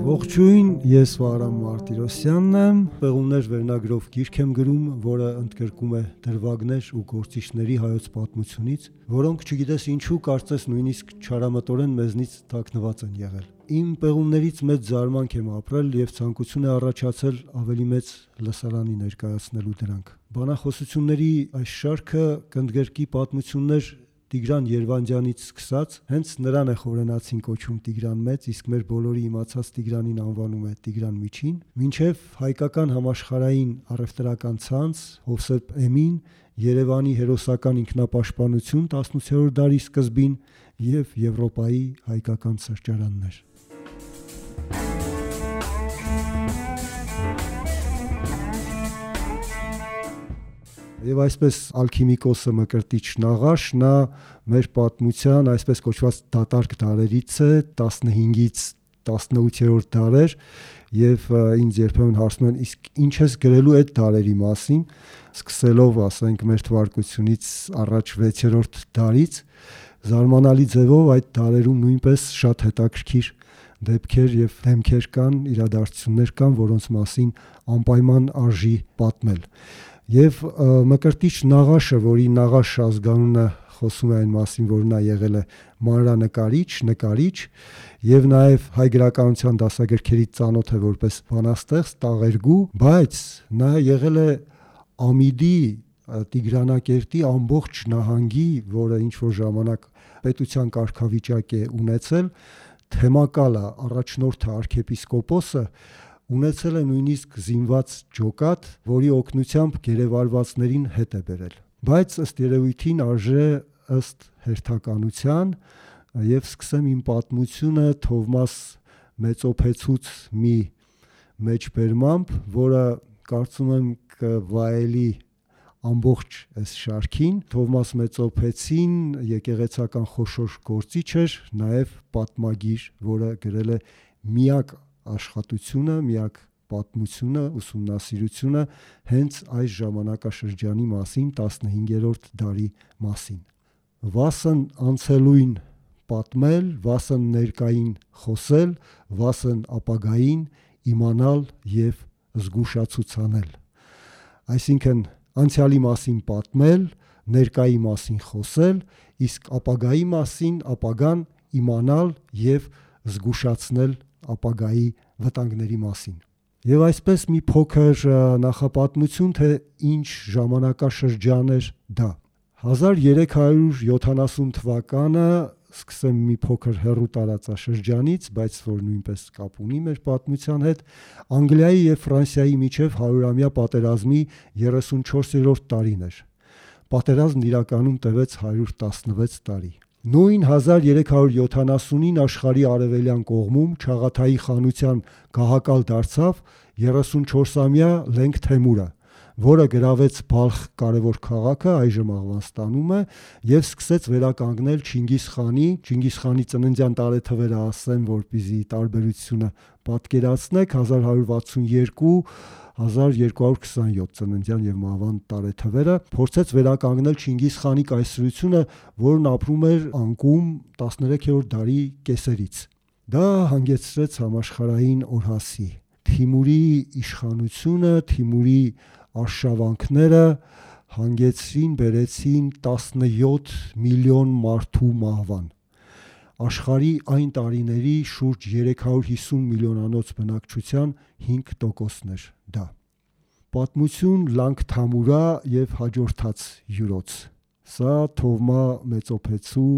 Ողջույն, ես Վահրամ Մարտիրոսյանն եմ, Պեղումներ վերնագրով գիրք եմ գրում, որը ընդգրկում է դրվագներ ու գործիչների հայոց պատմությունից, որոնք չգիտես ինչու կարծես նույնիսկ չարամտորեն մեզնից թաքնված են եղել։ Իմ պեղումներից մեծ զարմանք եմ ապրել եւ ցանկություն է առաջացել ավելի մեծ լսարանի ներկայացնելու դրանք։ Բանախոսությունների այս շարքը կընդգրկի պատմություններ Տիգրան Երվանդյանից սկսած, հենց նրան է խորենացին կոչում Տիգրան Մեծ, իսկ մեր բոլորի իմացած Տիգրանին անվանում է Տիգրան Միջին, մինչև հայկական համաշխարհային առևտրական ցանց, Հովսեփ Էմին, Երևանի հերոսական ինքնապաշտպանություն 18-րդ դարի սկզբին եւ Եվրոպայի հայկական սրճարաններ։ Եվ այսպես ալքիմիկոսը Մկրտիչ Նաղաշ, նա մեր պատմության այսպես կոչված դատարկ դարերից է, 15-ից 18-րդ դարեր, եւ ինձ երբեմն հարցնում են, իսկ ինչ ես գրելու այդ դարերի մասին, սկսելով, ասենք, մեր թվարկությունից առաջ 6-րդ դարից, զարմանալի ձևով այդ դարերում նույնպես շատ հետաքրքիր դեպքեր եւ դեմքեր կան, իրադարձություններ կան, որոնց մասին անպայման արժի պատմել։ Եվ Մկրտիչ Նաղաշը, որի Նաղաշ ազգանունը խոսում է այն մասին, որ նա եղել է մանրանկարիչ, եւ նաեւ հայ գրականության դասագրքերից ծանոթ է որպես բանաստեղծ, տաղերգու, բայց նա եղել է Ամիդի Տիգրանակերտի ամբողջ նահանգի, որը ինչ որ ժամանակ պետության կարգավիճակ է ունեցել, թեմակալը, առաջնորդը, արքեպիսկոպոսը ունեցել է նույնիսկ զինված ջոկատ, որի օգնությամբ գերեվարվածներին հետ է բերել։ Բայց ըստ երևույթին արժե ըստ հերթականության եւ սկսեմ իմ պատմությունը Թովմաս Մեծոփեցուց մի մեջբերմամբ, որը կարծում եմ կվայելի ամբողջ այս շարքին։ Թովմաս Մեծոփեցին եկեղեցական խոշոր գործիչ էր, նաեւ պատմագիր, որը գրել է միակ աշխատությունը, միակ պատմությունը, ուսումնասիրությունը հենց այս ժամանակաշրջանի մասին, 15-րդ դարի մասին։ Վասն անցելույն պատմել, վասն ներկային խոսել, վասն ապագային իմանալ եւ զգուշացուցանել։ Այսինքն անցյալի մասին պատմել, ներկայի մասին խոսել, իսկ ապագայի մասին ապագան իմանալ եւ զգուշացնել ապագայի վտանգների մասին։ Եվ այսպես մի փոքր նախապատմություն, թե ինչ ժամանակաշրջան էր դա։ 1370 թվականը, սկսեմ մի փոքր հեռու տարածաշրջանից, բայց որ նույնպես կապ ունի մեր պատմության հետ, Անգլիայի եւ Ֆրանսիայի միջև 100-ամյա պատերազմի 34-րդ տարին էր։ Պատերազմն իրականում տևեց 116 տարի։ Նույն 1370-ին աշխարհի արևելյան կողմում Չաղաթայի խանության գահակալ դարձավ 34-ամյա Լենգ Թեմուրը, որը գրավեց Բալխ կարևոր քաղաքը, այժմ Աղվանստանում է, եւ սկսեց վերականգնել Չինգիզ Խանի ծննդյան տարեթվերը ասեմ, որպեսզի տարբերությունը պատկերացնեք, 1162 1227 ծննդյան եւ մահվան տարեթվերը, փորձեց վերականգնել Չինգիզ Խանի կայսրությունը, որն ապրում էր անկում 13-րդ դարի կեսերից։ Դա հանգեցրեց համաշխարհային օրհասի։ Թիմուրի իշխանությունը, Թիմուրի արշավանքները բերեցին 17 միլիոն մարդու մահվան։ Աշխարհի այն տարիների շուրջ 350 միլիոնանոց բնակչության 5%-ն էր դա։ Պատմություն Լանգ Թամուրա եւ հաջորդած յուրոց։ Սա Թովմա Մեծոփեցու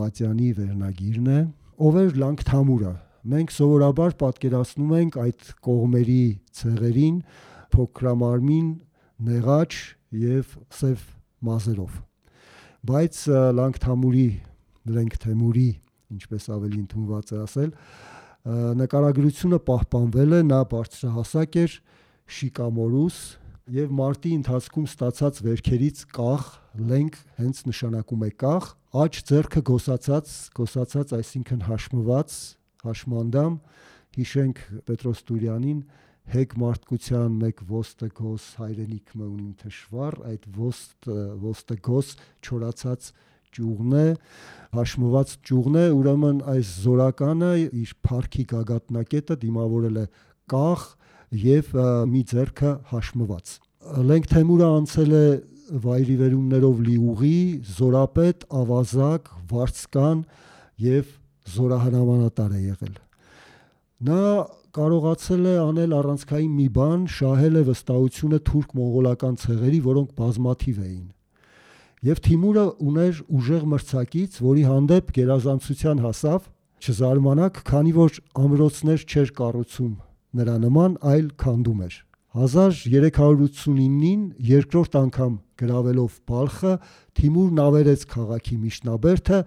Մատյանի վերնագիրն է։ Ով էր Լանգ Թամուրը։ Մենք սովորաբար պատկերացնում ենք այդ կողմերի ցեղերին փոքրամարմին, նեղաչ եւ սև մազերով։ Բայց Լենգ Թեմուրի, ինչպես ավելի ընդունված է ասել, նկարագրությունը պահպանվել է, նա բարձրահասակ էր, շիկամորուս եւ մարտի ընթացքում ստացած վերքերից կախ, Լենգ հենց նշանակում է կախ, աջ ձեռքը գոսացած, այսինքն հաշմված, հաշմանդամ, հիշենք Պետրոս Տուրյանին, հեգ մարդկության մեկ ոստը գոս հայրենիք մը ունին թշվառ, այդ ոստը գոս չորացած ճյուղն է, հաշմված ճյուղն է, ուրեմն այս զորականը իր փառքի գագաթնակետը դիմավորել է կախ եւ մի ձեռքը հաշմված։ Լենք Թեմուրը անցել է վայրիվերումներով լի ուղի, զորապետ, ավազակ, վարձկան եւ զորահրամանատար է եղել։ Նա կարողացել է անել առանցքային մի բան, շահել է վստահությունը թուրք-մոնղոլական ցեղերի, որոնք բազմաթիվ էին։ Եվ Թիմուրը ուներ ուժեղ մրցակից, որի հանդեպ գերազանցության հասավ, չզարմանաք, քանի որ ամրոցներ չէր կառուցում նրա նման, այլ քանդում էր։ 1389-ին երկրորդ անգամ գրավելով Բալխը, Թիմուրն ավերեց քաղաքի միջնաբերդը,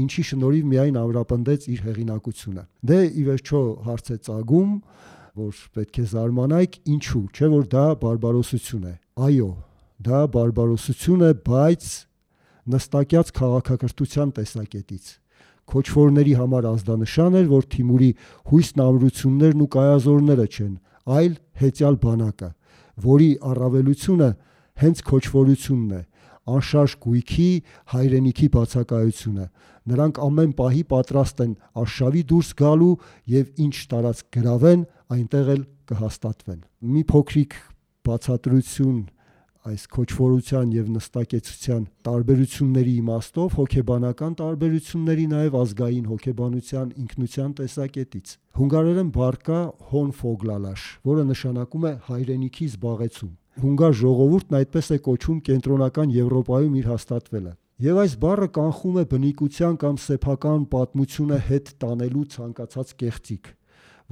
ինչի շնորհիվ միայն ամրապնդեց իր հեղինակությունը։ Դե ի վերջո հարց է ծագում, որ պետք է զարմանայք, ինչու, չէ՞ որ դա բարբարոսություն է։ Այո, դա բարբարոսություն է, բայց նստակյաց քաղաքակրթության տեսակետից։ Քոչվորների համար ազդանշան էր, որ Թիմուրի հույսն ամրություններն ու կայազորները չեն, այլ հեծյալ բանակը, որի առավելությունը հենց քոչվորությունն է, անշարժ գույքի, հայրենիքի բացակայությունը։ Նրանք ամեն պահի պատրաստ են արշավի դուրս գալու եւ ինչ տարածք գրավեն, այնտեղ էլ կհաստատվեն։ Մի փոքրիկ բացատրություն այս քոչվորության եւ նստակեցության տարբերությունների իմաստով, հոգեբանական տարբերությունների, նաեւ ազգային հոգեբանության ինքնության տեսակետից։ Հունգարերեն բառ կա հոնֆոգլալաշ, որը նշանակում է հայրենիքի զբաղեցում։ Հունգար ժողովուրդն այդպես է կոչում կենտրոնական Եվրոպայում իր հաստատվելը։ Եվ այս բառը կանխում է բնիկության կամ սեփական պատմությունը հետ տանելու ցանկացած կեղծիք,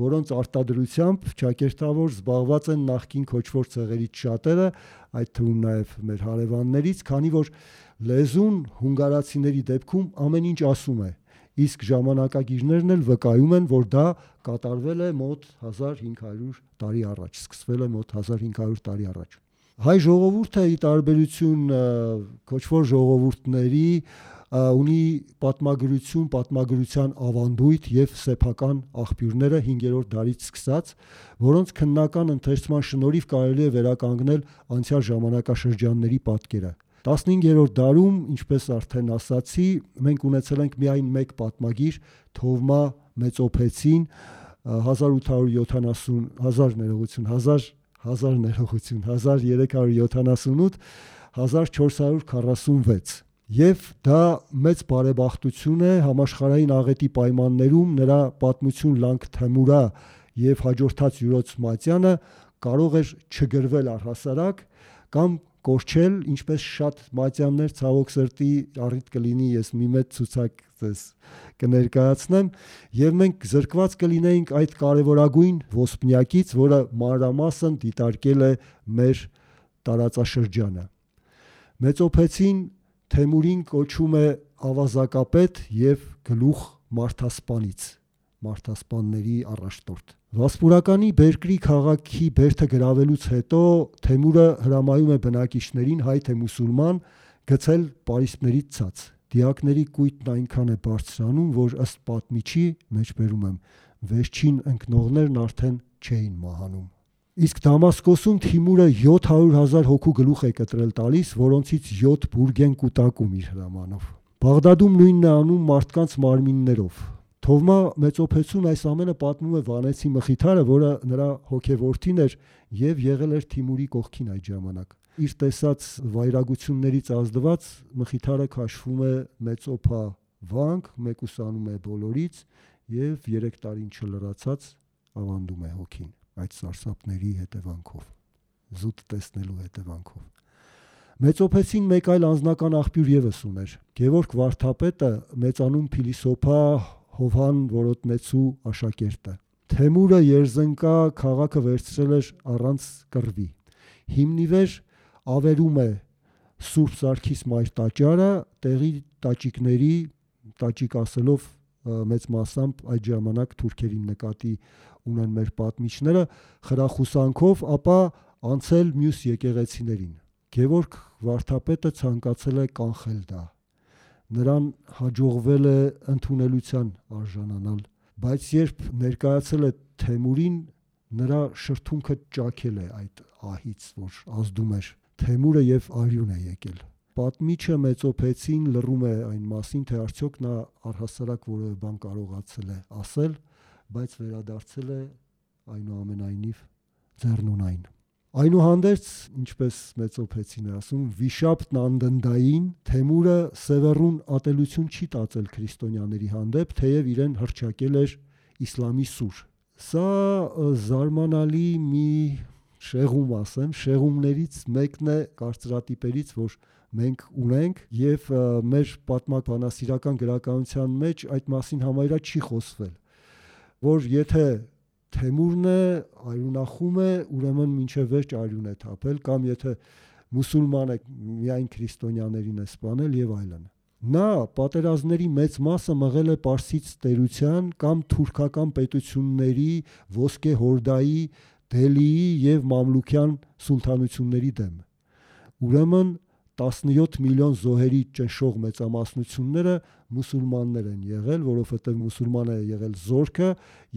որոնց արտադրությամբ ճակերտավոր զբաղված են նախկին քոչվոր ցեղերից շատերը, այդ թվում նաև մեր հարևաններից, քանի որ լեզուն հունգարացիների դեպքում ամեն ինչ ասում է, իսկ ժամանակագիրներն էլ վկայում են, որ դա կատարվել է մոտ 1500 տարի առաջ, սկսվել է մոտ 1500 տարի առաջ։ Հայ ժողովուրդը ի տարբերություն քոչվոր ժողովուրդների ունի պատմագրություն, պատմագրության ավանդույթ եւ սեփական աղբյուրները 5-րդ դարից սկսած, որոնց քննական ընթերցման շնորհիվ կարելի է վերականգնել անցյալ ժամանակաշրջանների պատկերը։ 15-րդ դարում, ինչպես արդեն ասացի, մենք ունեցել ենք միայն մեկ պատմագիր, Թովմա Մեծոփեցին 1378-1446, եւ դա մեծ բարեբախտություն է համաշխարհային աղետի պայմաններում նրա պատմություն լանք Թեմուրա եւ հաջորդած Յուրոց Մատյանը կարող էր չգրվել առհասարակ կամ կորչել, ինչպես շատ մատյաններ ցավոք սրտի առիթ կլինի, ես մի մեծ ցուցակ ձեզ կներկայացնեմ, եւ մենք զրկված կլինեինք այդ կարևորագույն ոսպնյակից, որը մանրամասն դիտարկել է մեր տարածաշրջանը։ Մեծոփեցին Թեմուրին կոչում է ավազակապետ եւ գլուխ մարդասպանից, մարդասպանների առաջնորդ։ Վասպուրականի Բերկրի քաղաքի բերդը գրավելուց հետո Թեմուրը հրամայում է բնակիչներին, հայ թե մուսուլման, գցել պարիսպներից ցած։ Դիակների կույտն այնքան է բարձրանում, որ ըստ պատմիչի, մեջբերում եմ, վերջին ընկնողներն արդեն չէին մահանում։ Իսկ Դամասկոսում Թիմուրը 700,000 հոգու գլուխ է կտրել տալիս, որոնցից 7 բուրգ են կուտակում իր հրամանով։ Բաղդադում նույնն է անում մարդկանց մարմիններով։ Թովմա Մեծոփեցուն այս ամենը պատմում է Վանեցի Մխիթարը, որը նրա հոգեորդին էր եւ եղել էր Թիմուրի կողքին այդ ժամանակ։ Իր տեսած վայրագություններից ազդված Մխիթարը քաշվում է Մեծոփա վանք, մեկուսանում է բոլորից եւ 3 տարին չլրացած ավանդում է հոգին այդ սարսափների հետևանքով, զուտ տեսնելու հետևանքով։ Մեծոփեցին մեկ այլ անձնական աղբյուր եւս ուներ։ Գևորգ Վարդապետը մեծանուն փիլիսոփա Հովհան Որոտնեցու աշակերտը։ Թեմուրը Երզնկա քաղաքը վերցրել էր առանց կռվի։ Հիմնիվեր ավերում է Սուրբ Սարգիս մայր տաճարը, տեղի տաճիկների, տաճիկ ասելով մեծ մասամբ այդ ժամանակ թուրքերին նկատի ունեն մեր պատմիչները, խրախուսանքով, ապա անցել մյուս եկեղեցիներին։ Գևորգ Վարդապետը ցանկացել է կանխել դա։ Նրան հաջողվել է ընդունելության արժանանալ, բայց երբ ներկայացել է Թեմուրին, նրա շրթունքը ճաքել է այդ ահից, որ ազդում էր։ Թեմուրը եւ արյուն է եկել։ Պատմիչը Մեծոփեցին լռում է այն մասին, թե արդյոք նա առհասարակ որևէ բան կարողացել է ասել, բայց վերադարձել է այնուամենայնիվ ձեռնունայն։ Այնուհանդերձ, ինչպես Մեծոփեցին է ասում, վիշապն անդնդային Թեմուրը սևեռուն ատելություն չի տածել քրիստոնյաների հանդեպ, թեև իրեն հռչակել էր իսլամի սուր։ Սա զարմանալի մի շեղում, ասեմ, շեղումներից մեկն է կարծրատիպերից, որ մենք ունենք, եւ մեր պատմաբանասիրական գրականության մեջ այդ մասին համարյա չի խոսվել, որ եթե Թեմուրն է, արյունախում է, ուրեմն մինչև վերջ արյուն է թափել, կամ եթե մուսուլման է, միայն քրիստոնյաներին է սպանել եւ այլն։ Նա պատերազմների մեծ մասը մղել է Պարսից տերության կամ թուրքական պետությունների, Ոսկե Հորդայի, Դելիի եւ Մամլուքյան սուլթանությունների դեմ։ Ուրեմն 17 միլիոն զոհերի ճնշող մեծամասնությունները մուսուլմաններ են եղել, որովհետև մուսուլման է եղել զորքը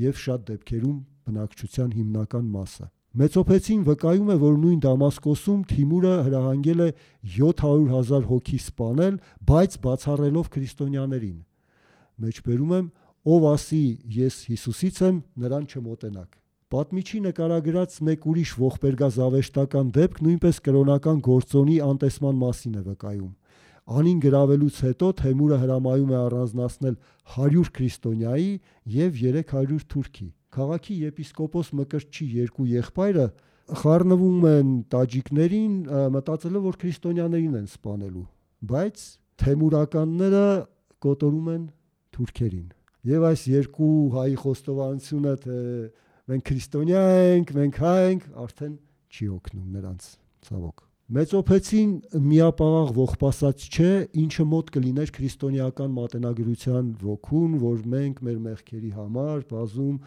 եւ շատ դեպքերում բնակչության հիմնական մասը։ Մեծոփեցին վկայում է, որ նույն Դամասկոսում Թիմուրը հրահանգել է 700,000 հոգի սպանել, բայց բացառելով քրիստոնյաներին։ Մեջբերում եմ, ով ասի ես Հիսուսից եմ, նրան չմոտենաք։ Պատմիչի նկարագրած մեկ ուրիշ ողբերգազավեշտական դեպք նույնպես կրոնական գործոնի անտեսման մասին է վկայում։ Անին գրավելուց հետո Թեմուրը հրամայում է առանձնացնել 100 քրիստոնյայի եւ 300 թուրքի։ Քաղաքի եպիսկոպոս Մկրտչի երկու եղբայրը խառնվում են տաջիկներին, մտածելով, որ քրիստոնյաներին են սպանելու, բայց թեմուրականները կոտորում են թուրքերին։ Եվ այս երկու հայի խոստովանությունը, թե մենք քրիստոնյա ենք, մենք հայ ենք, արդեն չի օգնում նրանց, ցավոք։ Մեծոփեցին միապաղաղ ողբասած չէ, ինչը մոտ կլիներ քրիստոնեական մատենագրության ոգուն, որ մենք մեր մեղքերի համար բազում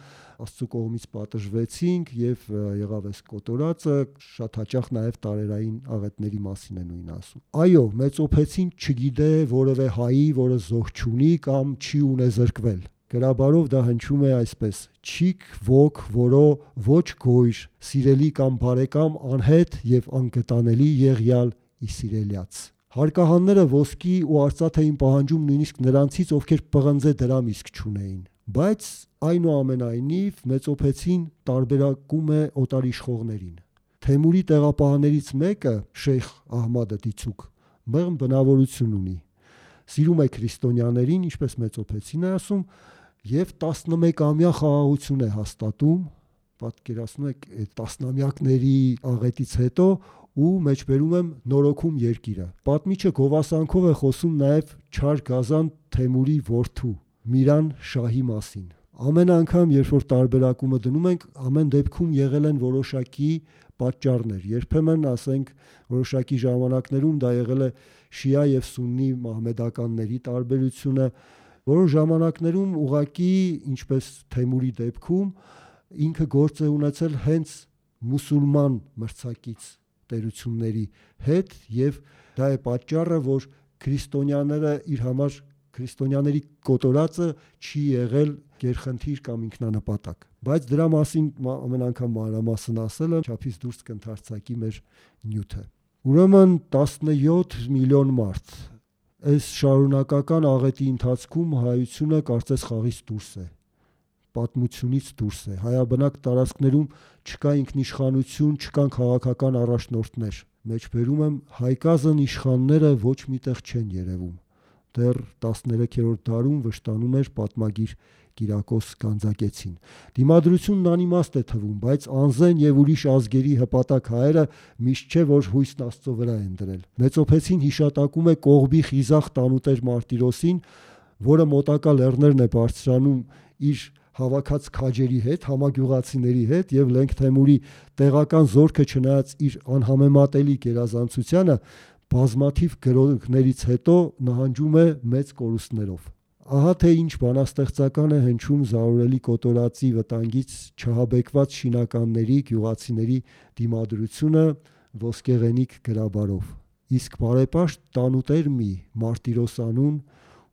Աստծո կողմից պատժվեցինք եւ եղավ այս կոտորածը, շատ հաճախ նաեւ տարերային աղետների մասին է նույնը ասում։ Այո, Մեծոփեցին չգիտե որևէ հայի, որը զոհ չունի կամ չի ունեզրկվել։ Գրաբարով դա հնչում է այսպես. չիք ոգ, որո ոչ գոյր, սիրելի կամ բարեկամ անհետ եւ անգտանելի եղյալ իսիրելյաց։ Հարկահանները ոսկի ու արծաթ էին պահանջում նույնիսկ նրանցից, ովքեր պղնձե դրամ իսկ չունեին։ Բայց այնուամենայնիվ Մեծոփեցին տարբերակում է օտարիշխողներին։ Թեմուրի տեղապահներից մեկը, Շեյխ Ահմադը Դիցուկ, մեղմ բնավորություն ունի։ Սիրում է քրիստոնյաներին, ինչպես Մեծոփեցին է ասում, եւ 11-ամյա խաղաղություն է հաստատում, պատկերացնում եք այդ տասնամյակների աղետից հետո, ու մեջբերում եմ նորոգում երկիրը։ Պատմիչը գովասանքով է խոսում նաեւ Չար Գազան Թեմուրի որդու Միրան շահի մասին։ Ամեն անգամ, երբ որ տարբերակումը դնում ենք, ամեն դեպքում եղել են որոշակի պատճառներ։ Երբեմն, ասենք, որոշակի ժամանակներում դա եղել է շիա եւ սուննի մահմեդականների տարբերությունը, որոշ ժամանակներում ուղղակի, ինչպես Թեմուրի դեպքում, ինքը գործ է ունեցել հենց մուսուլման մրցակից տերությունների հետ, եւ դա է պատճառը, որ քրիստոնյաները իր համար քրիստոնյաների կոտորածը չի եղել գերխնդիր կամ ինքնանպատակ։ Բայց դրա մասին ամեն անգամ մանրամասն ասելը չափից դուրս կընթարցակի մեր նյութը։ Ուրեմն 17 միլիոն մարդ։ Այս շարունակական աղետի ընթացքում հայությունը կարծես խաղից դուրս է, պատմությունից դուրս է։ Հայաբնակ տարածքներում չկա ինքնիշխանություն, չկան քաղաքական առաջնորդներ։ Մեջբերում եմ, հայկազն իշխանները ոչ միտեղ չեն երևում։ Դեռ 13-րդ դարում վշտանում էր պատմագիր Կիրակոս Գանձակեցին։ Դիմադրությունն անիմաստ է թվում, բայց անզեն եւ ուրիշ ազգերի հպատակ հայերը միշտ չէ որ հույսն Աստծո վրա են դրել։ Մեծոփեցին հիշատակում է Կողբի խիզախ տանուտեր Մարտիրոսին, որը մոտակա լեռներն է բարձրանում իր հավաքած քաջերի հետ, համագյուղացիների հետ, եւ Լենգ Թեմուրի տեղական զորքը չնայած իր անհամեմատելի գերազանցությանը բազմաթիվ գրոհներից հետո նահանջում է մեծ կորուստներով։ Ահա թե ինչ բանաստեղծական է հնչում զարորելի կոտորածի վտանգից չհաբեկված շինականների, գյուղացիների դիմադրությունը ոսկեղենիկ գրաբարով։ Իսկ բարեպաշտ տանուտեր մի Մարտիրոսանուն,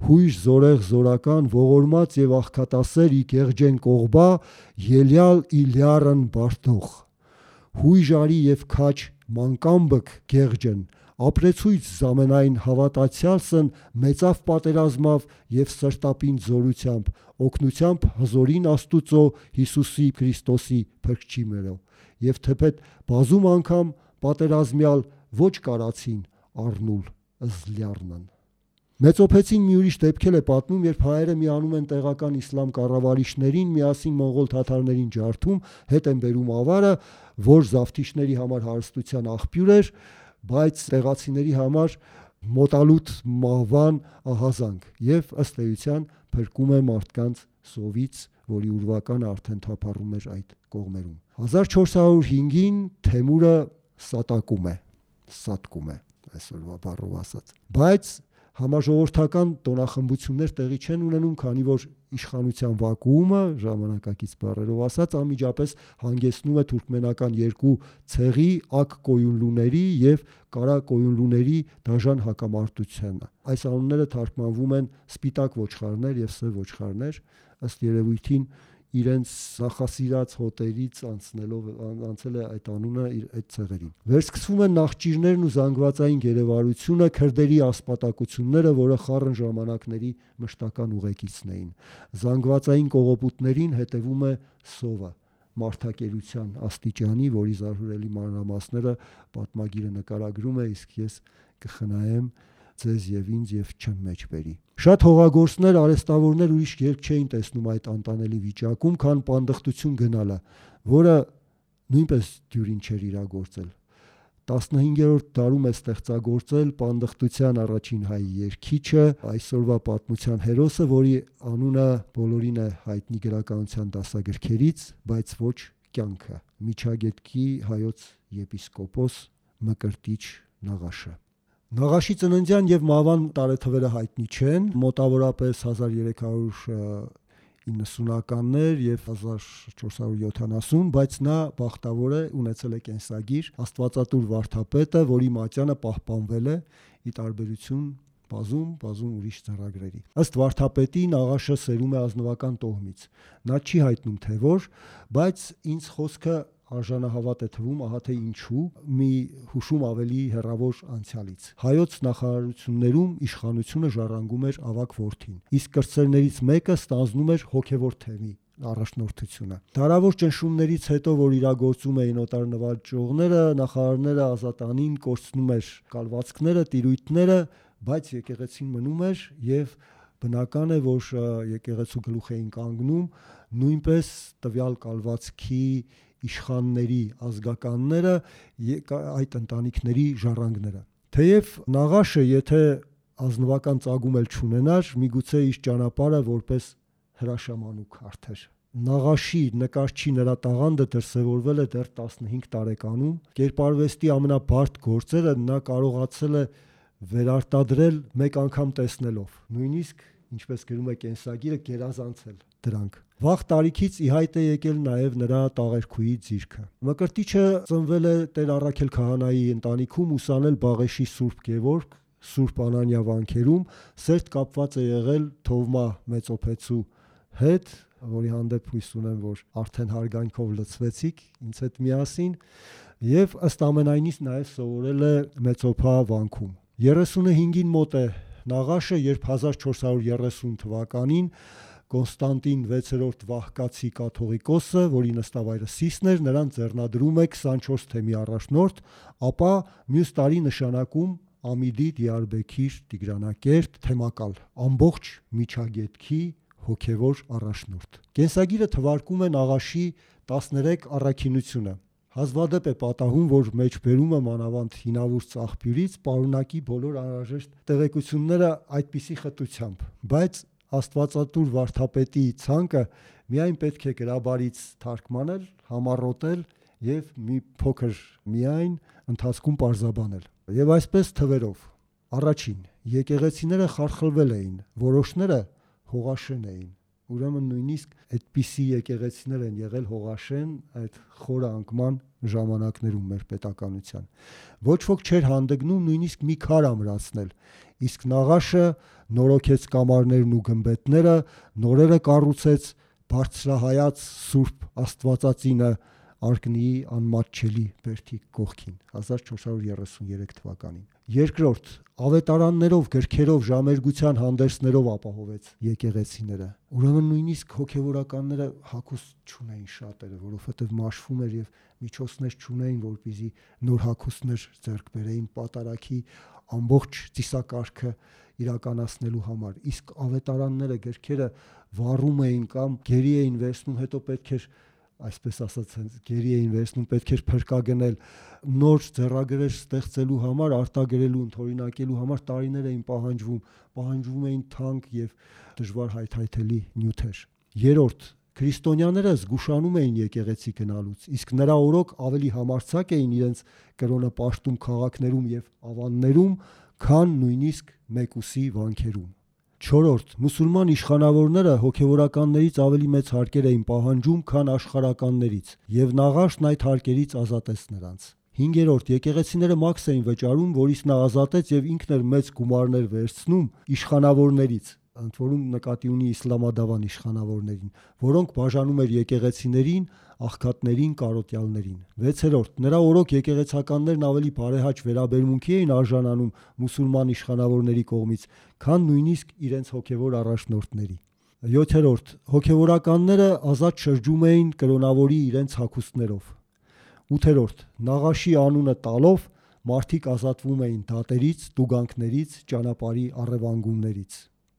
հույժ զորեղ զորական, ողորմած եւ աղքատասեր ի գեղջեն կողբա, ելյալ իլյարն բարդող։ Հույժ արի եւ քաչ մանկամբք գեղջեն, Ապրեցույց զամենայն հավատացյալսն մեծավ պատերազմավ եւ սրտապին զորությամբ, օգնությամբ հզորին Աստուծո Հիսուսի Քրիստոսի փրկչի մերո։ Եվ թեպետ բազում անգամ պատերազմյալ ոչ կարացին առնուլ զլյարնն։ Մեծոփեցին մի ուրիշ դեպքել է պատմում, երբ հայերը միանում են տեղական իսլամ կառավարիչներին միասին մոնղոլ թաթարներին ջարդում, հետ են բերում ավարը, որ զավթիչների համար հարստության աղբյուր էր, բայց տեղացիների համար մոտալուտ մահվան ահազանգ եւ ըստ էության փրկում է մարդկանց սովից, որի ուրվականը արդեն թափառում էր այդ կողմերում։ 1405-ին Թեմուրը սատկում է այսօրվա բառով ասած, բայց համաժողովրդական տոնախմբություններ տեղի չեն ունենում, քանի որ իշխանության վակուումը, ժամանակակից բառերով ասած, անմիջապես հանգեցնում է թուրքմենական երկու ցեղի ակ կոյունլուների եւ կարա կոյունլուների դաժան հակամարտությանը։ Այս անունները թարգմանվում են սպիտակ ոչխարներ եւ սև ոչխարներ, ըստ երևույթին իրենց նախասիրած հոտերից անցել է այդ անունը այդ ցեղերին։ Վերսկսվում են նախճիրներն ու զանգվածային գերեվարությունը, քրդերի ասպատակությունները, որը խառն ժամանակների մշտական ուղեկիցն էին։ Զանգվածային կողոպուտներին հետևում է սովը, մարդակերության աստիճանի, որի զարհուրելի մանրամասները պատմագիրը նկարագրում է, իսկ ես կխնայեմ ձեզ եւ ինձ եւ չեմ մեջ բերի։ Շատ հողագործներ, արհեստավորներ ուրիշ ելք չէին տեսնում այդ անտանելի վիճակում, քան պանդխտություն գնալը, որը նույնպես դյուրին չէր իրագործել։ 15-րդ դարում է ստեղծագործել պանդխտության առաջին հայ երգիչը, այսօրվա պատմության հերոսը, որի անունը բոլորին է հայտնի գրականության դասագրքերից, բայց ոչ կյանքը, Միջագետքի հայոց եպիսկոպոս Մկրտիչ Նաղաշը։ Նաղաշի ծննդյան եւ մահվան տարեթվերը հայտնի չեն, մոտավորապես 1390-ականներ եւ 1470, բայց նա բախտավոր է, ունեցել է կենսագիր, Աստվածատուր վարդապետը, որի մատյանը պահպանվել է ի տարբերություն բազում ուրիշ ծրագրերի։ Ըստ վարդապետի Նաղաշը սերում է ազնվական տոհմից։ Նա չի հայտնում թե որ, բայց ինձ խոսքը արժանահավատ է թվում, ահա թե ինչու, մի հուշում ավելի հեռավոր անցյալից։ Հայոց նախարարություններում իշխանությունը ժառանգում էր ավագ որդին, իսկ կրտսերներից մեկը ստանձնում էր հոգևոր թեմի առաջնորդությունը։ Դարավոր ճնշումներից հետո, որ իրագործում էին օտար նվաճողները, նախարարները ազատանին կորցնում էր կալվածքները, տիրույթները, բայց եկեղեցին մնում էր եւ բնական է, որ եկեղեցու գլուխ էին կանգնում նույնպես տվյալ կալվածքի իշխանների ազգականները, այդ ընտանիքների ժառանգները։ Թեև Նաղաշը, եթե ազնվական ծագում էլ չունենար, միգուցե իր ճանապարհը որպես հրաշամանուկ հարթեր։ Նաղաշի նկարչի նրա տաղանդը դրսևորվել է դեռ 15 տարեկանում։ Կերպարվեստի ամենաբարդ գործերը նա կարողացել է վերարտադրել մեկ անգամ տեսնելով, նույնիսկ ինչպես գրում է կենսագիրը, գերազանցել դրանք։ Վաղ տարիքից ի հայտ է եկել նաև նրա տաղերքուի ձիրքը։ Մկրտիչը ծնվել է Տեր Առաքել քահանայի ընտանիքում, ուսանել Բաղեշի Սուրբ Գևորգ, Սուրբ Անանիա վանքերում, սերտ կապված է եղել Թովմա Մեծոփեցու հետ, որի հանդեպ հույս ունեմ, որ արդեն հարգանքով լցվեցիք ինձ հետ միասին, եւ ըստ ամենայնից նաև սովորել է Մեծոփա վանքում։ 35-ին մոտ է Նաղաշը, երբ 1430 թվականին Կոնստանտին 6-րդ Վահկացի կաթողիկոսը, որի նստավայրը Սիսն էր, նրան ձեռնադրում է 24 թեմի առաջնորդ, ապա մյուս տարի նշանակում Ամիդի, Դիարբեքիր, Տիգրանակերտ թեմակալ, ամբողջ Միջագետքի հոգևոր առաջնորդ։ Կենսագիրը թվարկում է Նաղաշի 13 առաքինությունը։ Հազվադեպ է պատահում, որ մեջբերումը մանավանդ հինավուրց աղբյուրից պարունակի բոլոր անհրաժեշտ տեղեկությունները այդպիսի խտությամբ, բայց Աստվածատուր վարդապետի ցանկը միայն պետք է գրաբարից թարգմանել, համառոտել եւ մի փոքր միայն ընթացքում պարզաբանել։ Եվ այսպես թվերով. առաջին, եկեղեցիները խարխլվել էին, որոշները հողաշեն էին։ Ուրեմն նույնիսկ այդպիսի եկեղեցիներ են եղել հողաշեն այդ խորը անկման ժամանակներում մեր պետականության։ Ոչ ոք չէր հանդգնում նույնիսկ մի քար ամրացնել, իսկ Նաղաշը նորոգեց կամարներն ու գմբեթները, նորերը կառուցեց բարձրահայաց Սուրբ Աստվածածինը Արկնիի անմատչելի բերդի կողքին 1433 թվականին։ Երկրորդ, ավետարաններով, գրքերով, ժամերգության հանդերձներով ապահովեց եկեղեցիները։ Ուրեմն նույնիսկ հոգևորականները հագուստ չունեին շատերը, որովհետև մաշվում էր եւ միջոցներ չունեին, որպեսզի նոր հագուստներ ձեռք բերեին պատարագի ամբողջ ծիսակարգը իրականացնելու համար։ Իսկ ավետարանները, գրքերը վառում էին կամ գերի էին վերցնում, հետո պետք էր, այսպես ասած, գերի էին վերցնում, պետք էր փրկագնել նոր ձեռագրեր ստեղծելու համար, արտագրելու, ընդօրինակելու համար տարիներ էին պահանջվում էին թանկ եւ դժվար հայթայթելի նյութեր։ Երրորդ, քրիստոնյաները զգուշանում էին եկեղեցի գնալուց, իսկ նրա օրոք ավելի համարձակ էին իրենց կրոնը պաշտում քաղաքներում եւ ավաններում, քան նույնիսկ մեկուսի վանքերում։ Չորրորդ, մուսուլման իշխանավորները հոգևորականներից ավելի մեծ հարկեր էին պահանջում, քան աշխարհականներից, եւ Նաղաշն այդ հարկերից ազատեց նրանց։ Հինգերորդ, եկեղեցիները մաքս էին վճարում, որից նա ազատեց եւ ինքն էր մեծ գումարներ վերցնում իշխանավորներից, ընդ որում նկատի ունի իսլամադավան իշխանավորներին, որոնք բաժանում էր եկեղեցիներին, աղքատներին, կարոտյալներին։ Վեցերորդ, նրա օրոք եկեղեցականներն ավելի բարեհաճ վերաբերմունքի էին արժանանում մուսուլման իշխանավորների կողմից, քան նույնիսկ իրենց հոգևոր առաջնորդների։ Յոթերորդ, հոգևորականները ազատ շրջում էին կրոնավորի իրենց հագուստներով։ Ութերորդ, Նաղաշի անունը տալով մարդիկ ազատվում էին դատերից, տուգանքներից, ճանապարհի առևանգումներից։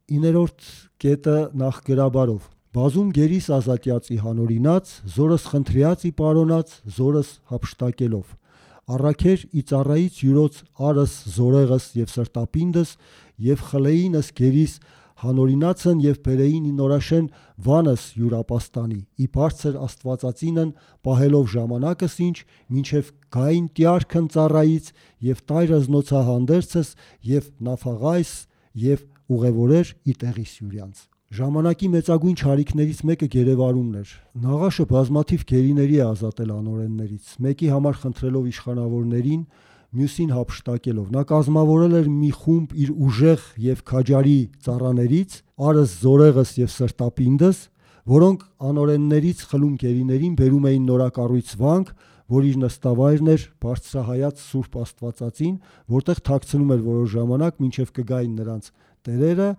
Իներորդ կետը նախգրաբարով։ Բազում գերիս ազատյացի հանորինած, զորս խնդրյացի պարոնած, զորս հափշտակելով։ Առաքեր ի ծառայից յուրոց արս զորեղս եւ սրտապինդս եւ խլեինս գերիս հանորինացն եւ բերեին ի նորաշեն վանս յուրապաստանի ի բարձր աստվածածինն պահելով ժամանակս ինչ մինչեւ գային տյարքն ծառայից եւ տայրս նոցահանդերցս եւ նաֆաղայս եւ ուղևորեր ի տեղի սյուրյանց։ Ժամանակի մեծագույն չարիքներից մեկը գերեվարումն էր։ Նաղաշը բազմաթիվ գերիների է ազատել անօրեններից, մեկի համար խնդրելով իշխանավորներին, մյուսին հափշտակելով։ Նա կազմավորել էր մի խումբ իր ուժեղ եւ քաջարի ծառաներից, արս զորեղս եւ սրտապինդս, որոնք անօրեններից խլում գերիներին բերում էին նորակառույց վանք, որ իր նստավայրն էր բարձրահայաց Սուրբ Աստվածածին, որտեղ թաքցնում էր որոշ ժամանակ, մինչև կգային նրանց տերերը,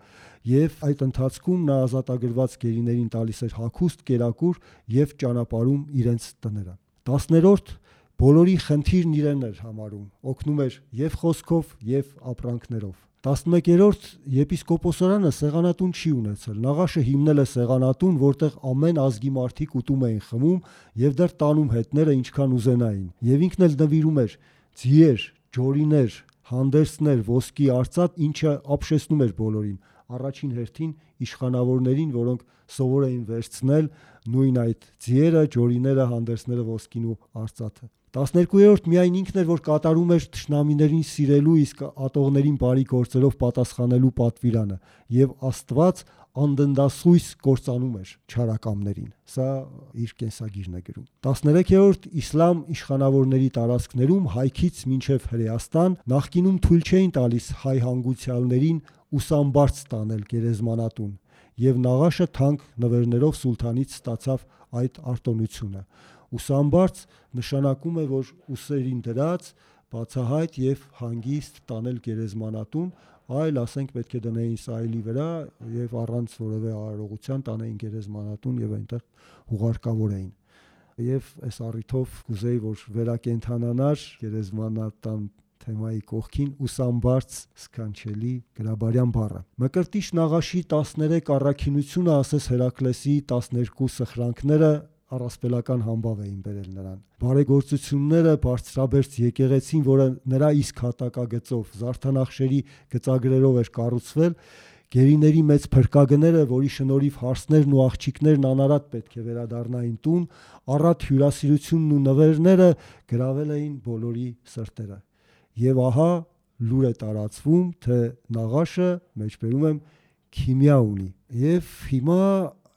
եւ այդ ընթացքում նա ազատագրված գերիներին տալիս էր հագուստ, կերակուր եւ ճանապարհում իրենց տները։ 10-րդ բոլորի խնդիրն իրեն էր համարում, օգնում էր եւ խոսքով եւ ապրանքներով։ 11-րդ եպիսկոպոսարանը սեղանատուն չի ունեցել։ Նաղաշը հիմնել է սեղանատուն, որտեղ ամեն ազգի մարդիկ ուտում էին, խմում եւ դեռ տանում հետները ինչքան ուզենային։ Եվ ինքն էլ նվիրում էր ձիեր, ջորիներ, հանդերձներ, ոսկի արծաթ, ինչը ապշեցնում էր բոլորին։ Առաջին հերթին իշխանավորներին, որոնք սովոր էին վերցնել նույն այդ ձիերը, ջորիները, հանդերձները, ոսկին ու արծաթը։ 12-րդ միայն ինքն էր, որ կատարում էր թշնամիներին սիրելու, իսկ ատողներին բարի գործերով պատասխանելու պատվիրանը, եւ Աստված անդնդասույս կործանում էր չարակամներին։ Սա իր կենսագիրն է գրում։ 13-րդ իսլամ իշխանավորների տարածքներում հայքից մինչև Հրեաստան նախկինում թույլ չէին տալիս հայ հանգուցյալներին ուսամբարձ տանել գերեզմանատուն, եւ Նաղաշը թանկ նվերներով սուլթանից ստացավ այդ արտոնությունը։ Ուսամբարձ նշանակում է, որ ուսերին դրած բացահայտ եւ հանգիստ տանել գերեզմանատուն, այլ ասենք պետք է դնեին սայլի վրա եւ առանց որևէ արարողության տանեին գերեզմանատուն եւ այնտեղ հուղարկավորեին։ Եվ այս առիթով կուզեի, որ վերակենդանանար գերեզմանատան թեմայի կողքին ուսամբարձ սքանչելի գրաբարյան բառը։ Մկրտիչ Նաղաշի 13 առաքինությունը, ասես Հերակլեսի 12 սխրանքները առասպելական համբավ էին բերել նրան։ Բարեգործությունները բարձրաբերց եկեղեցին, որը նրա իսկ հատակագծով զարդանախշերի գծագրերով էր կառուցվել, գերիների մեծ փրկագները, որի շնորհիվ հարսներն ու աղջիկներն անարատ պետք է վերադառնային տուն, առատ հյուրասիրությունն ու նվերները գրավել էին բոլորի սրտերը։ Եվ ահա լուր է տարածվում, թե Նաղաշը, մեջբերում եմ, քիմիա ունի։ Եվ հիմա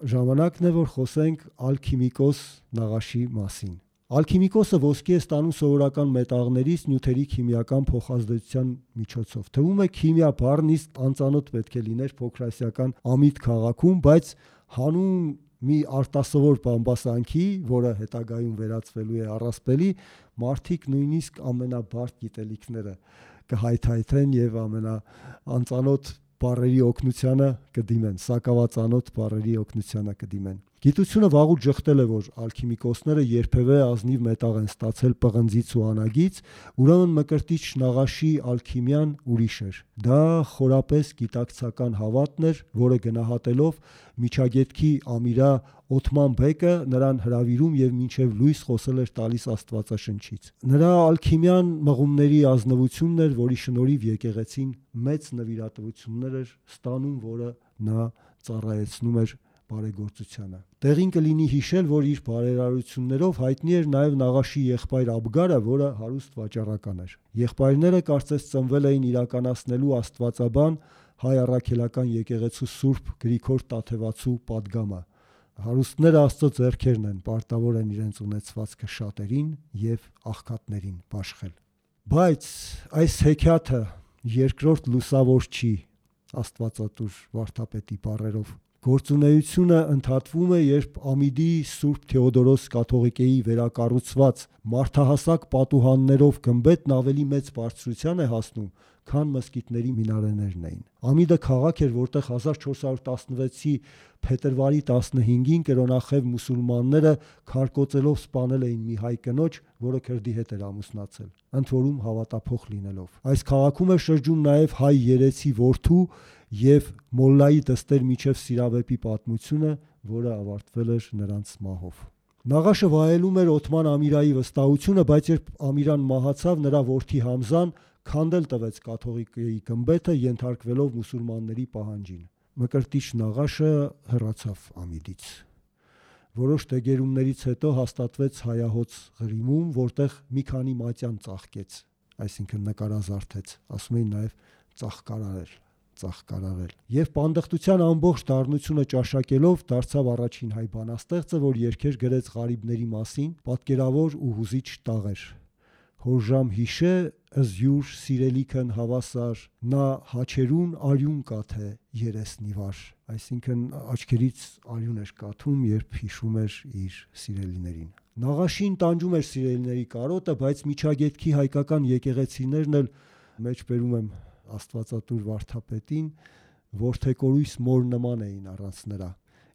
ժամանակն է, որ խոսենք ալքիմիկոս Նաղաշի մասին։ Ալքիմիկոսը ոսկի է ստանում սովորական մետաղներից նյութերի քիմիական փոխազդեցության միջոցով։ Թվում է քիմիա բառն իսկ անծանոթ պետք է լիներ փոքրասիական Ամիդ քաղաքում, բայց հանուն մի արտասովոր բամբասանքի, որը հետագայում վերածվելու է առասպելի, մարդիկ նույնիսկ ամենաբարդ գիտելիքները կհայթայթեն եւ ամենաանծանոթ բառերի օգնությանը կդիմեն, սակավածանոթ բառերի օգնությանը կդիմեն։ Գիտությունը վաղուց ժխտել է, որ ալքիմիկոսները երբևէ ազնիվ մետաղ են ստացել պղնձից ու անագից, ուրեմն Մկրտիչ Նաղաշի ալքիմիան ուրիշ էր։ Դա խորապես գիտակցական հավատն էր, որը գնահատելով Միջագետքի Ամիրա Օթման բեկը նրան հրավիրում եւ մինչեւ լույս խոսել էր տալիս Աստվածաշնչից։ Նրա ալքիմիան մղումների ազնվությունն էր, որի շնորհիվ եկեղեցին մեծ նվիրատվություններ էր ստանում, որը նա ծառայեցնում էր բարեգործությանը։ Տեղին կլինի հիշել, որ իր բարերարություններով հայտնի էր նաև Նաղաշի եղբայր Աբգարը, որը հարուստ վաճառական էր։ Եղբայրները կարծես ծնվել էին իրականացնելու աստվածաբան հայ առաքելական եկեղեցու Սուրբ Գրիգոր Տաթևացու պատգամը։ Հարուստները Աստծո ձեռքերն են, պարտավոր են իրենց ունեցվածքը շատերին եւ աղքատներին բաշխել։ Բայց այս հեքիաթը երկրորդ լուսավոր չի, Աստվածատուր վարդապետի բառերով։ Գործունեությունը ընդհատվում է, երբ Ամիդի Սուրբ Թեոդորոս կաթողիկեի վերակառուցված մարդահասակ պատուհաններով գմբեթն ավելի մեծ բարձրության է հասնում, քան մզկիթների մինարեներն էին։ Ամիդը քաղաք էր, որտեղ 1416-ի փետրվարի 15-ին կրոնախև մուսուլմանները քարկոծելով սպանել էին մի հայ կնոջ, որը քրդի հետ էր ամուսնացել, ընդ որում հավատափող լինելով։ Այս քաղաքում էր շրջում նաև հայ երեցի որդու եւ Մոլլայի դստեր միջև Սիրավեպի պատմությունը, որը ավարտվել էր նրանց մահով։ Նաղաշը վայելում էր Օթման Ամիրայի վստահությունը, բայց երբ Ամիրան մահացավ, նրա որդի Համզան քանդել տվեց կաթողիկեի գմբեթը, ենթարկվելով մուսուլմանների պահանջին։ Մկրտիչ Նաղաշը հեռացավ Ամիդից։ Որոշ դեգերումներից հետո հաստատվեց հայահոց Ղրիմում, որտեղ մի քանի մատյան ծաղկեց, այսինքն նկարազարդեց, ասում էին նաև ծաղկարարել։ Եվ պանդխտության ամբողջ դառնությունը ճաշակելով դարձավ առաջին հայ բանաստեղծը, որ երգեր գրեց ղարիբների մասին, պատկերավոր ու հուզիչ տաղեր։ Հորժամ հիշե ըզյուր սիրելիքն հավասար, նա հաչերուն արյուն կաթե երեսնիվար, այսինքն աչքերից արյուն էր կաթում, երբ հիշում էր իր սիրելիներին։ Նաղաշին տանջում էր սիրելիների կարոտը, բայց Միջագետքի հայկական եկեղեցիներն էլ, մեջբերում եմ Աստվածատուր վարդապետին, որդեկորույս մոր նման էին առանց նրա,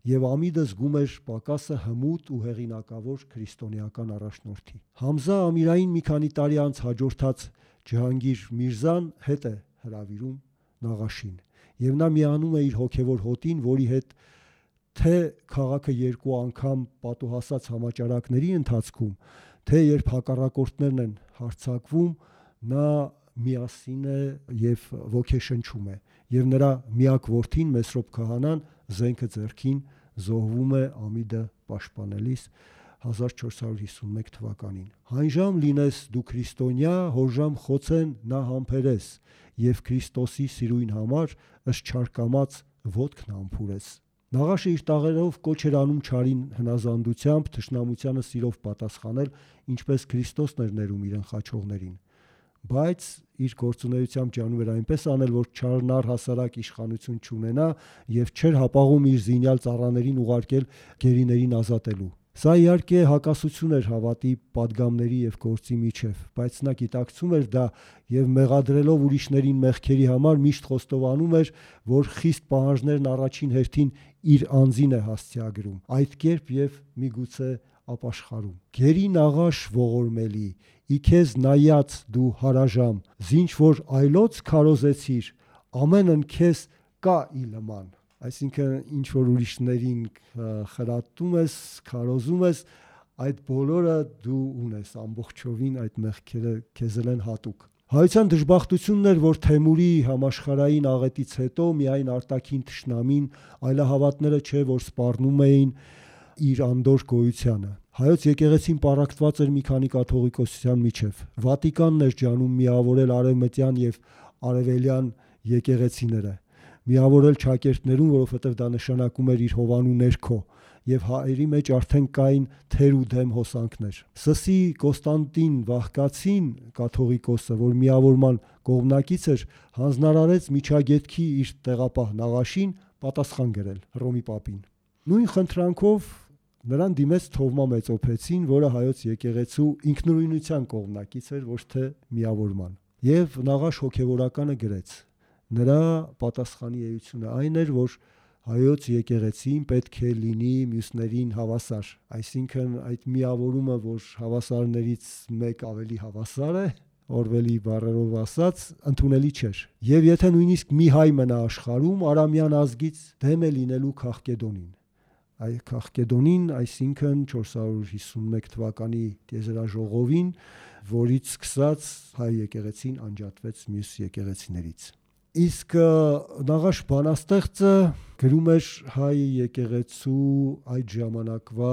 եւ Ամիդը զգում էր պակասը հմուտ ու հեղինակավոր քրիստոնեական առաջնորդի։ Համզա Ամիրային մի քանի տարի անց հաջորդած Ջհանգիր Միրզան հետ է հրավիրում Նաղաշին, եւ նա միանում է իր հոգեվոր հոտին, որի հետ թե քաղաքը երկու անգամ պատուհասած համաճարակների ընթացքում, թե երբ հակառակորդներն են հարձակվում, նա միասին է եւ ոգեշնչում է, եւ նրա միակ որդին Մեսրոպ քահանան զենքը ձեռքին զոհվում է Ամիդը պաշտպանելիս 1451 թվականին։ Հանժամ լինես դու քրիստոնյա, հորժամ խոցեն նա համբերես, եւ Քրիստոսի սիրույն համար ըստ չարկամած ոտքն ամփուրես։ Նաղաշը իր տաղերով կոչ էր անում չարին հնազանդությամբ, թշնամությանը սիրով պատասխանել, ինչպես Քրիստոսն էր ներում իր ընխաչողներին։ Բայց իր գործունեությամբ ջանում էր այնպես անել, որ չարն առհասարակ իշխանություն չունենա եւ չէր հապաղում իր զինյալ ծառաներին ուղարկել գերիներին ազատելու։ Սա իհարկե հակասություն էր հավատի, պատգամների եւ գործի միջև, բայց նա գիտակցում էր դա եւ մեղադրելով ուրիշներին մեղքերի համար միշտ խոստովանում էր, որ խիստ պահանջներն առաջին հերթին իր անձին է հասցեագրում, այդ կերպ եւ միգուցե ապաշխարում։ Գերի Նաղաշ ողորմելի, ի քեզ նայած դու հարաժամ, զինչ որ այլոց քարոզեցիր, ամենն քեզ կա իլման։ Այսինքն ինչ որ ուրիշներին խրատում ես, քարոզում ես, այդ բոլորը դու ունես, ամբողջովին այդ մեղքերը քեզ են հատուկ։ Հայության դժբախտությունն էր, որ Թեմուրի համաշխարհային աղետից հետո միայն արտաքին թշնամին, այլահավատները չէ, որ սպառնում էին իր անդոր գոյությանը։ Հայոց եկեղեցին պառակտված էր մի քանի կաթողիկոսության միջև։ Վատիկանն էր ջանում միավորել արևմտյան եւ արևելյան եկեղեցիները, միավորել ճակերտներուն, որովհետև դա նշանակում էր իր հովանու ներքո, եւ հայերի մեջ արդեն կային թեր ու դեմ հոսանքներ։ Սսի Կոստանտին Վահկացին, կաթողիկոսը, որ միավորման կողմնակից էր, հանձնարարեց Միջագետքի իր տեղապահ Նաղաշին պատասխան գրել Հռոմի պապին։ Նույն խնդրանքով նրան դիմեց Թովմա Մեծոփեցին, որը հայոց եկեղեցու ինքնուրույնության կողմնակից էր, ոչ թե միավորման։ Եվ Նաղաշ հոգևորականը գրեց. նրա պատասխանի էությունը այն էր, որ հայոց եկեղեցին պետք է լինի մյուսներին հավասար, այսինքն այդ միավորումը, որ հավասարներից մեկ ավելի հավասար է, Օրվելի բառերով ասած, ընդունելի չէր։ Եվ եթե նույնիսկ մի հայ մնա աշխարհում, արամյան ազգից դեմ է լինելու Քաղկեդոնին։ Այ Քաղկեդոնին, այսինքն 451 թվականի տիեզերաժողովին, որից սկսած հայ եկեղեցին անջատվեց մյուս եկեղեցիներից։ Իսկ Նաղաշ բանաստեղծը գրում էր հայ եկեղեցու այդ ժամանակվա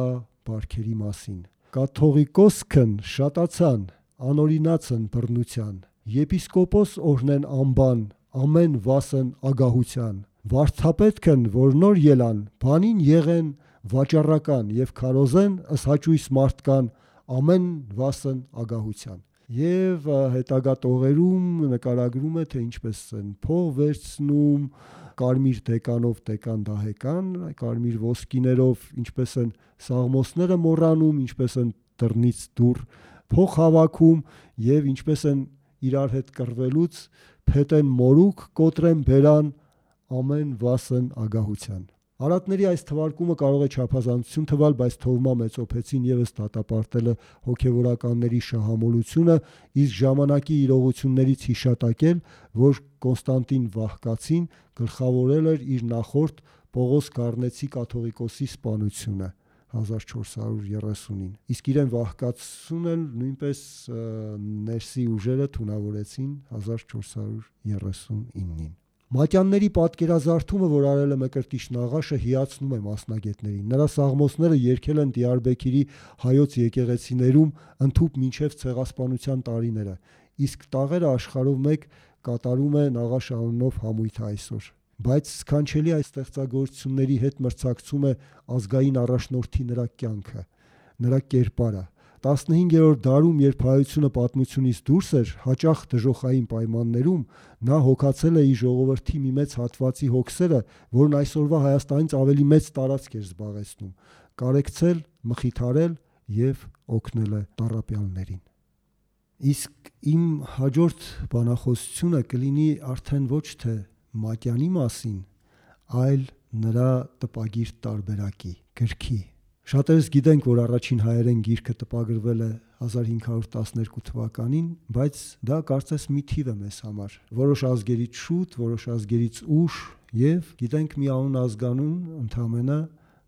բարքերի մասին։ Կաթողիկոսքն շատացան, անօրինացն բռնության, եպիսկոպոս օրհնեն անբան, ամեն վասն ագահության, վարդապետքն որ նոր ելան, բանին եղեն վաճառական եւ քարոզեն ըսհաճույս մարդկան, ամեն վասն ագահության։ Եվ հետագա տողերում նկարագրում է, թե ինչպես են փող վերցնում, կարմիր դեկանով դեկան դահեկան, կարմիր ոսկիներով ինչպես են սաղմոսները մոռանում, ինչպես են դռնից դուռ փող հավաքում եւ ինչպես են իրար հետ կռվելուց փետեն մորուք, կոտրեն բերան, ամեն վասն ագահության։ Արատների այս թվարկումը կարող է չափազանցություն թվալ, բայց Թովմա Մեծոփեցին եւս դատապարտել է հոգևորականների շահամոլությունը, իսկ ժամանակի իրողություններից հիշատակել, որ Կոնստանտին Վահկացին գլխավորել էր իր նախորդ Պողոս Գառնեցի կաթողիկոսի սպանությունը 1430-ին, իսկ իրեն Վահկացուն էլ նույնպես ներսի ուժերը թունավորեցին 1439-ին։ Մատյանների պատկերազարդումը, որ արել է Մկրտիչ Նաղաշը, հիացնում է մասնագետներին։ Նրա սաղմոսները երգել են Դիարբեքիրի հայոց եկեղեցիներում ընդհուպ մինչև ցեղասպանության տարիները, իսկ տաղերը աշխարհով մեկ կատարում է Նաղաշ անունով համույթը այսօր։ Բայց սքանչելի այս ստեղծագործությունների հետ մրցակցում է ազգային առաջնորդի նրա կյանքը, նրա կերպարը։ 15-րդ դարում, երբ հայությունը պատմությունից դուրս էր, հաճախ դժոխային պայմաններում, նա հոգացել է իր ժողովրդի մի մեծ հատվածի հոգսերը, որն այսօրվա Հայաստանից ավելի մեծ տարածք էր զբաղեցնում, կարեկցել, մխիթարել եւ օգնել է տառապյալներին։ Իսկ իմ հաջորդ բանախոսությունը կլինի արդեն ոչ թե Մատյանի մասին, այլ նրա տպագիր տարբերակի, գրքի։ Շատերս գիտենք, որ առաջին հայերեն գիրքը տպագրվել է 1512 թվականին, բայց դա կարծես մի թիվ է մեզ համար։ Որոշ ազգերից շուտ, որոշ ազգերից ուշ, եւ գիտենք մի անուն ազգանուն, ընդամենը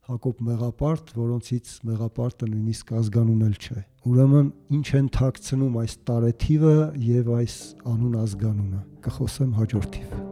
Հակոբ Մեղապարտ, որոնցից Մեղապարտը նույնիսկ ազգանուն էլ չէ։ Ուրեմն ինչ են թաքցնում այս տարեթիվը եւ այս անուն ազգանունը։ Կխոսեմ հաջորդ թիվ։